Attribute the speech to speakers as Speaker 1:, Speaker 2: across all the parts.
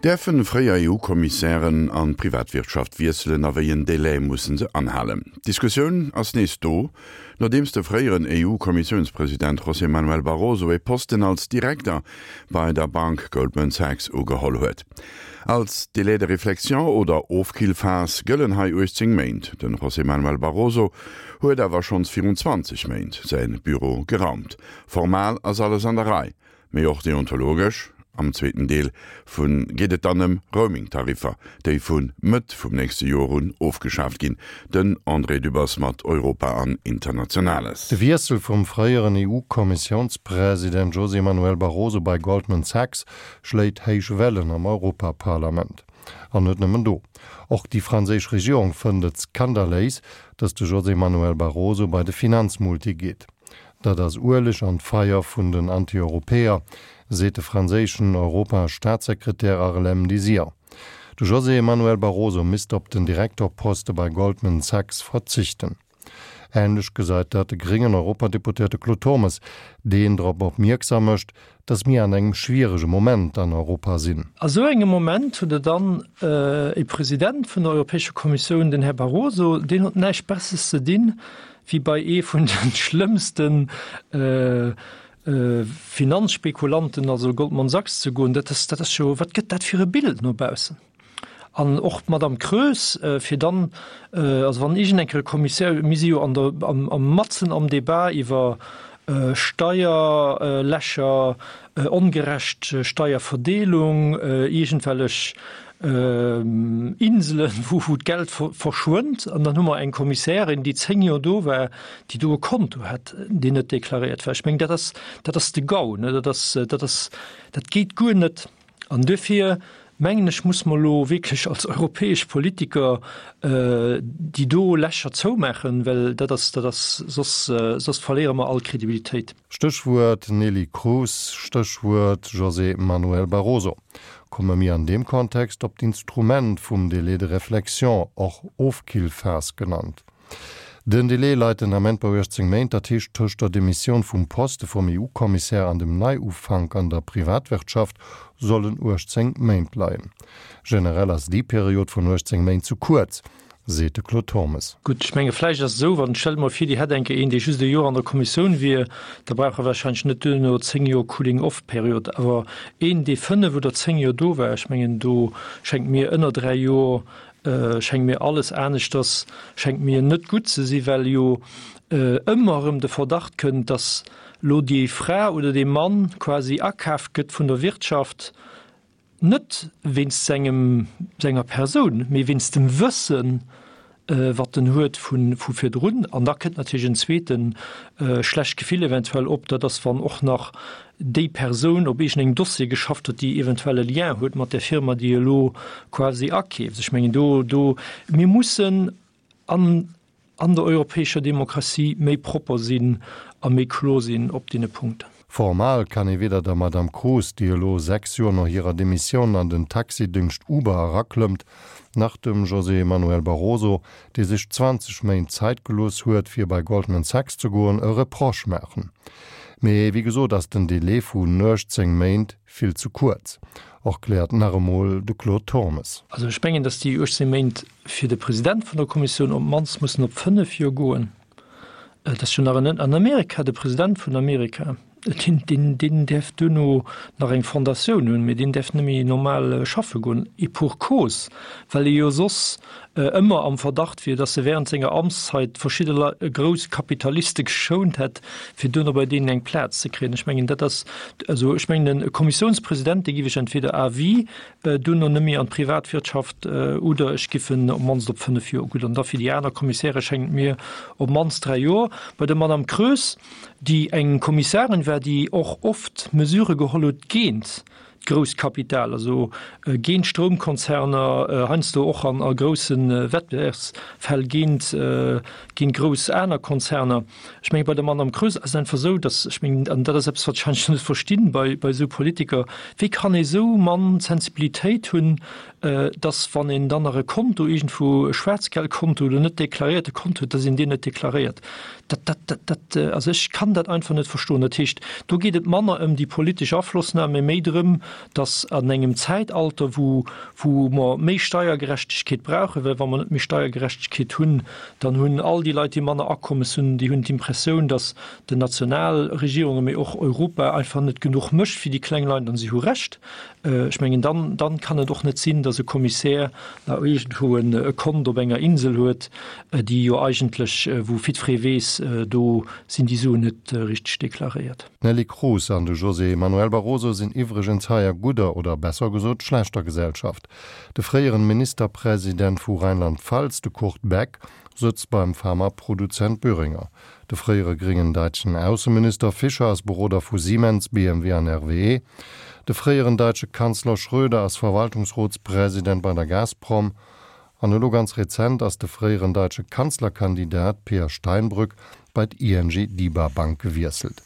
Speaker 1: Däerfen fréier EU-Kommissären an d'Privatwirtschaft wiesselen a wéi en Délai mussen se anhalen? D'Diskussioun ass nees do, nodeems de fréieren EU-Kommissiounspresident José Manuel Barroso e Posten als Direkter bei der Bank Goldman Sachs ugeholl huet. Als Délai de réflexion oder Ofkillphas gëllen hei 18 Méint. De José Manuel Barroso huet awer schonns virun 20 Méint säi Büro geraumt. Formal ass alles an der Rei, Mee och deontologesch. Am zweeten Deel vu geet et dann ëm Roaming-Tariffer, déi vu Mëtt vum nächste Joer un ofgeschaaft ginn. Den André Dübbers mat Europa an Internationales.
Speaker 2: De Wiessel vum fréieren EU-Kommissiounspresident José Manuel Barroso bei Goldman Sachs schléit héich Wellen am Europaparlament. An net nëmmen do. Och déi franséisch Regierung fënnt et skandaléis, datt de José Manuel Barroso bei de Finanzmulti geet. Dat ass Ueleg an d'Feier vun den Anti-Europäer, seet de franséischen Europa-Staatssekretär Harlem Désir. De José Manuel Barroso misst op den Direktorposte bei Goldman Sachs verzichten. Änlech gesäit dat de gréngen Europadeputéierte Claude Turmes, deen drop opmierksam mécht, datt mir an engem schwierege Moment an Europa sinn.
Speaker 3: A sou engem Moment hutt Der dann e President vun der Europäescher Kommissioun, den Här Barroso, deen huet näischt Besseres ze dinn, wéi bei ee vun de schlëmmste Finanzspekulanten, also Goldman Sachs, ze goen, dat ass, dat ass jo, wat gëtt dat fir e Bild no baussen? An och d'Madame Kroes, fir dann, also wann iergend eng Kéier e Kommissär, mir si jo an der, am, am matzen am Débat iwwer Steierlächer, ongerecht Steierverdeelung, iergendwellech Inselen, wou d'Geld verschwënnt. An dann hu mer eng Kommissärin, déi 10 Joer do war, déi do e Konto hat, deen net deklaréiert war. Ech mengen, dat ass, dat ass de Gau, ne? Dat ass, dat ass, dat geet guer net. An duerfir mengen ech, muss mer elo wierklech als europäesch Politiker déi do Lächer zoumaachen, well dat ass, dat ass, soss, soss verléiere mer all Kredibilitéit.
Speaker 2: Stéchwuert Neelie Kroes, Stéchwuert José Manuel Barroso. Komme mir an deem Kontext op d'Instrument vum Délai de réflexion, och Ofkillphas genannt. Den Délai leit den Ament bei 18 Méint, dat heescht tëscht der Demissioun vum Poste vum EU-Kommissär an dem Neiufank an der Privatwirtschaft sollen 18 Méint leien. Generell ass déi Period vun 18 Méint ze kuerz, seet de Claude Turmes.
Speaker 3: Gutt, ech menge vläicht ass et esou, wann, stellt emol vir, Dir hätt eng Kéier een, dee just e Joer an der Kommissioun wier, da brauch e wahrscheinlech net duerno 10 Joer Cooling-off-Period. Awer een, dee 5 oder 10 Joer do war, ech mengen, do schéngt mir ënner 3 Joer, schéngt mir alles aneschters, schéngt mir net gutt ze sinn, well jo ëmmer erëm de Verdacht kënnt, datt elo déi Fra oder dee Mann quasi akaaft gëtt vun der Wirtschaft, Net wéinst sengem, senger Persoun, mee wéinst dem Wëssen, wat en huet vu virdrun. An da kënnt natierlech en zweete schlecht Gefill eventuell op, dat ass, wann och nach déi Persoun op iergendengem Dossier geschafft huet, déi eventuell e Lien huet mat där Firma, déi elo quasi akeeft. Ech mengen, do, do, mir mussen an an der europäescher Demokratie méi propper sinn a méi kloer sinn op deene Punkten.
Speaker 2: Formal kann ee weder der Madame Kroes, déi elo 6 Joer no hirer Demissioun an den Taxidéngscht Uber eraklëmmt, nach dem José Manuel Barroso, dee sech 20 Méint Zäit gelooss huet, fir bei Goldman Sachs ze goen, e Reproche maachen. Mee wéi gesot ass den Delai vu 18 Méint vill ze kuerz, erkläert nach emol de Claude Turmes.
Speaker 3: Also ech mengen, datt déi 18 Méint fir de President vun der Kommissioun op d'mannst mussen op 5 Joer goen. Et ass jo nach en an Amerika, de President vun Amerika, deen, deen, deen däerf duerno nach eng Fondatioun hunn, mee deen däerf net méi normal schaffe goen, et pour cause, well e jo soss ëmmer am Verdacht wier, datt e während senger Amtszeit verschidde Lei grouss Kapitaliste geschount hätt, fir duerno bei deenen eng Plaz ze kréien. Ech mengen, dat ass, also ech mengen, e Kommissiounspresident, dee giff ech entweder à vie Duerno net méi an d'Privatwirtschaft oder ech giff en op d'mannst op 5 Joer. Gutt, an da fir déi aner Kommissäre schéngt et mir op d'mannst 3 Joer. Bei der Madame Kroes, déi eng Kommissarin war, déi och oft Mesurë geholl huet géint d'Grousskapital, also géint d'Stroumkonzerner, heiansdo och an a grousse Wettbewerbsfäll géint géint grouss aner Konzerner. Ech menge bei der Madame Kroes ass et einfach esou, datt, ech mengen, an dat ass eppes, wat ech heiansdo net verstinn bei, bei esou Politiker, wéi kann ee sou mann Sensibilitéit hunn, datt wann een dann nach e Konto iergendwou, e Schwaarzgeldkonto oder net deklaréierte Konto huet, datt een deen net deklaréiert. Dat, dat, dat, dat, also ech kann dat einfach net verstoen. Dat heescht, do geet et manner ëm déi politesch Aflossnam, mee méi drëm, datt an engem Zäitalter, wou, wou mer méi Steiergerechtegkeet brauchen, well wa mer net méi Steiergerechtegkeet hunn, dann hunn all déi Leit, déi manner Akommes hunn, déi hunn d'Impressioun, datt den Nationalregierungen, mee och Europa einfach net genuch mécht fir déi kleng Leit, an si hu Recht. Ech mengen, dann, dann kann et och net sinn, datt e Kommissär nach iergendwou e Kont op enger Insel huet, déi jo eigentlech, wou jiddweree weess, do sinn déi Suen net richteg deklaréiert.
Speaker 2: D'Neelie Kroes an de José Manuel Barroso sinn iwwregens hei a gudder, oder besser gesot schlechter Gesellschaft. De fréieren Ministerpresident vu Rheinland-Pfalz, de Kurt Beck, sëtzt beim Pharmaproduzent Boehringer. De fréiere gréngen däitschen Ausseminister Fischer ass Beroder vu Siemens, BMW an RWE. De fréieren däitsche Kanzler Schröder ass Verwaltungsrotspresident bei der Gazprom. An elo ganz rezent ass de fréieren däitsche Kanzlerkandidat Peer Steinbrück bei d'ING Diba Bank gewiesselt.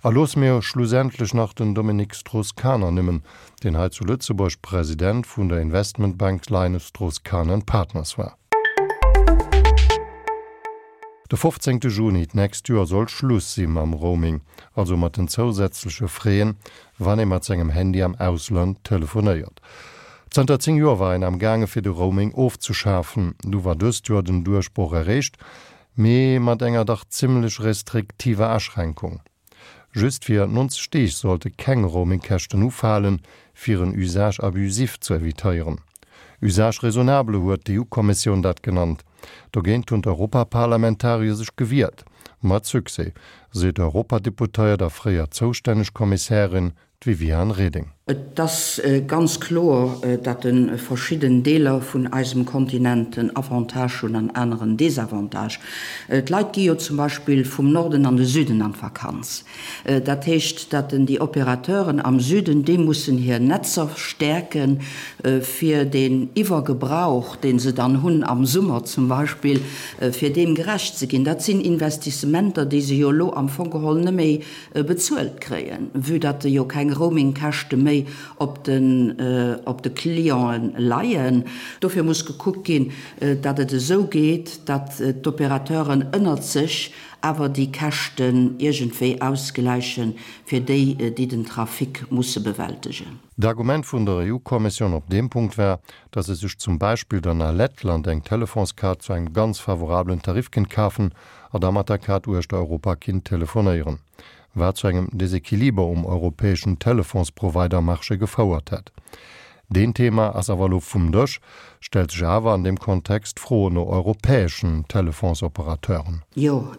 Speaker 2: A loosse mir schlussendlech nach den Dominique Strauss-Kahn ernimmen, deen hei zu Lëtzebuerg President vun der Investmentbank Linus Strauss-Kahn and Partners war. De 15 Juni d'nächst Joer soll Schluss si mam Roaming, also mat den zousätzleche Fräen, wann ee mat sengem Handy am Ausland telefonéiert. Zanter 10 Joer war een am gaange fir de Roaming ofzeschafen. Du war dëst Joer den Duerchbroch erreecht, mee mat enger dach zimmlech restriktiver Aschränkung. Just fir 90 Deeg sollte keng Roamingkäschten ufalen, fir en Usage abusif ze evitéieren. Usage raisonnable huet d'EU-Kommissioun dat genannt. Dogéint hunn d'Europaparlamentarier sech gewiert. Mat Succès, seet d'Europadeputéiert a fréier zoustänneg Kommissärin, d'Viviane Reding.
Speaker 4: Et ass ganz kloer, datt verschidden Deeler vun eisem Kontinent en Avantage hunn an aner en Desavantage. D'Leit gi jo zum Beispill vum Norden an de Süden an d'Vakanz. Dat heescht, datt déi Opérateuren am Süden, déi mussen hir Netzer stäerken, fir deen Iwwergebrauch, dee se dann hunn am Summer zum Beispill, fir deem gerecht ze ginn. Dat sinn Investissementer, déi se jo elo am Fong geholl net méi bezuelt kréien, vue datt jo keng Roamingkäschte méi op den op de Clienten leien. Dofir muss gekuckt ginn, datt et esou geet, datt d'Opérateuren ënnert sech awer déi Käschten iergendwéi ausgläichen, fir déi, déi den Trafic musse bewältegen.
Speaker 2: D'Argument vun der EU-Kommissioun op deem Punkt war, datt ee sech zum Beispill dann a Lettland eng Telefonskaart zu engem ganz favorablen Tarif kéint kafen a da mat der Kaart uechter Europa kinnt telefonéieren, wat zu engem Desequiliber um europäeschen Telefonsprovider-Marché gefouert hätt. Deen Thema ass awer elo vum Dësch, stellt sech awer an deem Kontext d'Fro no europäeschen Telefonsoperateuren.
Speaker 4: Jo,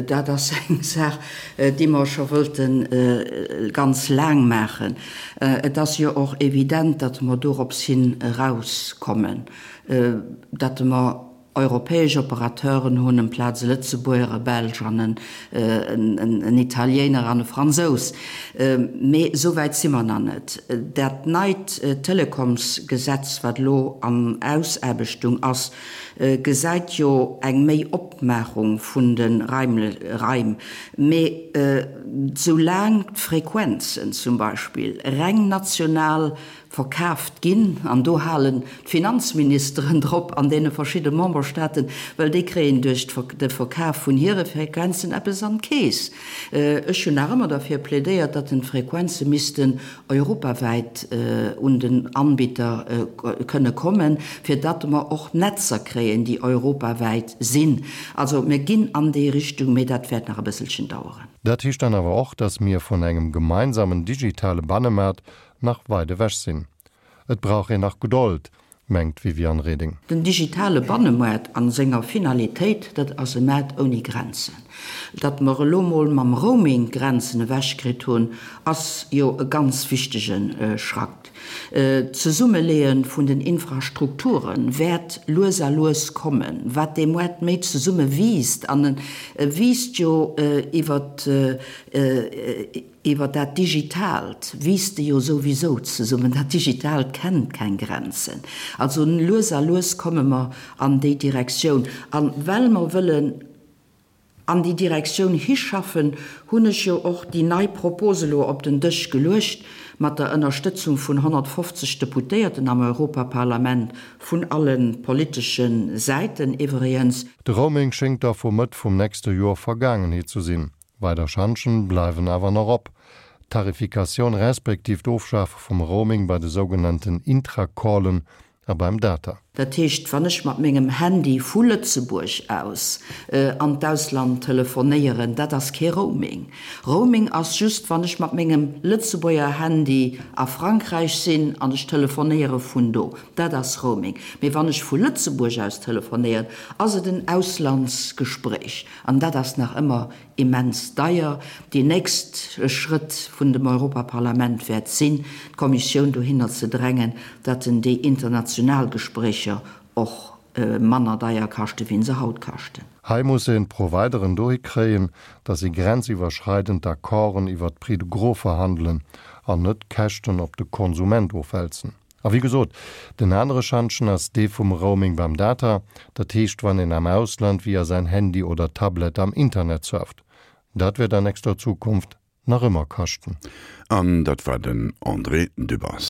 Speaker 4: dat ass eng Saach, déi mer scho wëllte ganz laang maachen. Et ass jo och evident, datt mer dorops hin erauskommen, datt mer europäesch Operateuren hunn, amplaz e Lëtzebuerger, e Belsch an en Italiener an e Fransous. Mee esou wäit si mer nach net. Dat neit Telekomsgesetz, wat elo an Ausaarbechtung ass, gesäit jo eng méi Opmaachung vun de Raim. Mee soulaang d'Frequenzen zum Beispill reng national verkaaft ginn, an do halen d'Finanzministeren drop an deene verschidde Memberstaaten, well déi kréien duerch de Verkaf vun hire Frequenzen eppes an d'Keess. Ech hunn nach ëmmer derfir plädéiert, datt den d'Frequenze missten europawäit un den Anbieter kënne kommen, fir datt mer och Netzer kréien, déi europawäit sinn. Also mir ginn an déi Richtung, mee dat wäert nach e bësselchen daueren.
Speaker 2: Dat heescht dann awer och, datt mir vun engem gemeinsamen digitale Bannemaart nach weit ewech sinn. Et brauch een nach Gedold, mengt d'Viviane Reding.
Speaker 4: Den digitale Bannemoart a senger Finalitéit, dat ass e Maart ouni Grenzen. Datt mer elo mol mam Roaming d'Grenzen ewechkritt hunn, ass jo e ganz wichtege Schrack. D'Zesummeleeë vun den Infrastrukture wäert lues a lues kommen. Wat dee Moart méi zesumme wiisst, an e wiisst jo iwwert Iwwer dat Digitaalt wiisst e jo souwisou zesummen. Dat Digitaalt kennt keng Grenzen. Also lues a lues komme mer an déi Direktioun. A well mer wëllen an déi Direktioun hischaffen, hunn ech jo och déi nei Propos elo op den Dësch geluecht. mat der Ënnerstëtzung vun 150 Deputéierten am Europaparlament, vun alle politesche Säiten iwwregens.
Speaker 2: De Roaming schéngt da vu Mëtt vum nächste Joer Vergaangenheet zu sinn. Weider Schantjen bleiwen awer nach op. D'Tarifikatioun respektiv d'Ofschafe vum Roaming bei de sougenannten Intracallen a beim Data.
Speaker 4: Dat heescht, wann ech mat mengem Handy vu Lëtzebuerg aus an d'Ausland telefonéieren, dat ass kee Roaming. Roaming ass just, wann ech mat mengem Lëtzebuerger Handy a Frankräich sinn an ech telefonéiere vun do. Dat ass Roaming. Mee wann ech vu Lëtzebuerg aus telefonéieren, ass et en Auslandsgespréich. An dat ass nach ëmmer immens deier. Déi nächst Schrëtt vun dem Europaparlament wäert sinn, d'Kommissioun dohinner ze drängen, datt en déi international Gespréicher och manner deier kaschten, wéi se haut kaschten.
Speaker 2: Hei muss een d'Provideren dohi kréien, datt si grenziwwerschreidend Accorden iwwert d'Prix de gros verhandelen an net d'Käschten op de Konsument ofwälzen. A wéi gesot, den anere Schantjen ass dee vum Roaming beim Data, dat heescht wann een am Ausland via säin Handy oder Tablet am Internet surft. Dat wäert an nächster Zukunft nach ëmmer kaschten.
Speaker 1: An dat war den André Dübbers.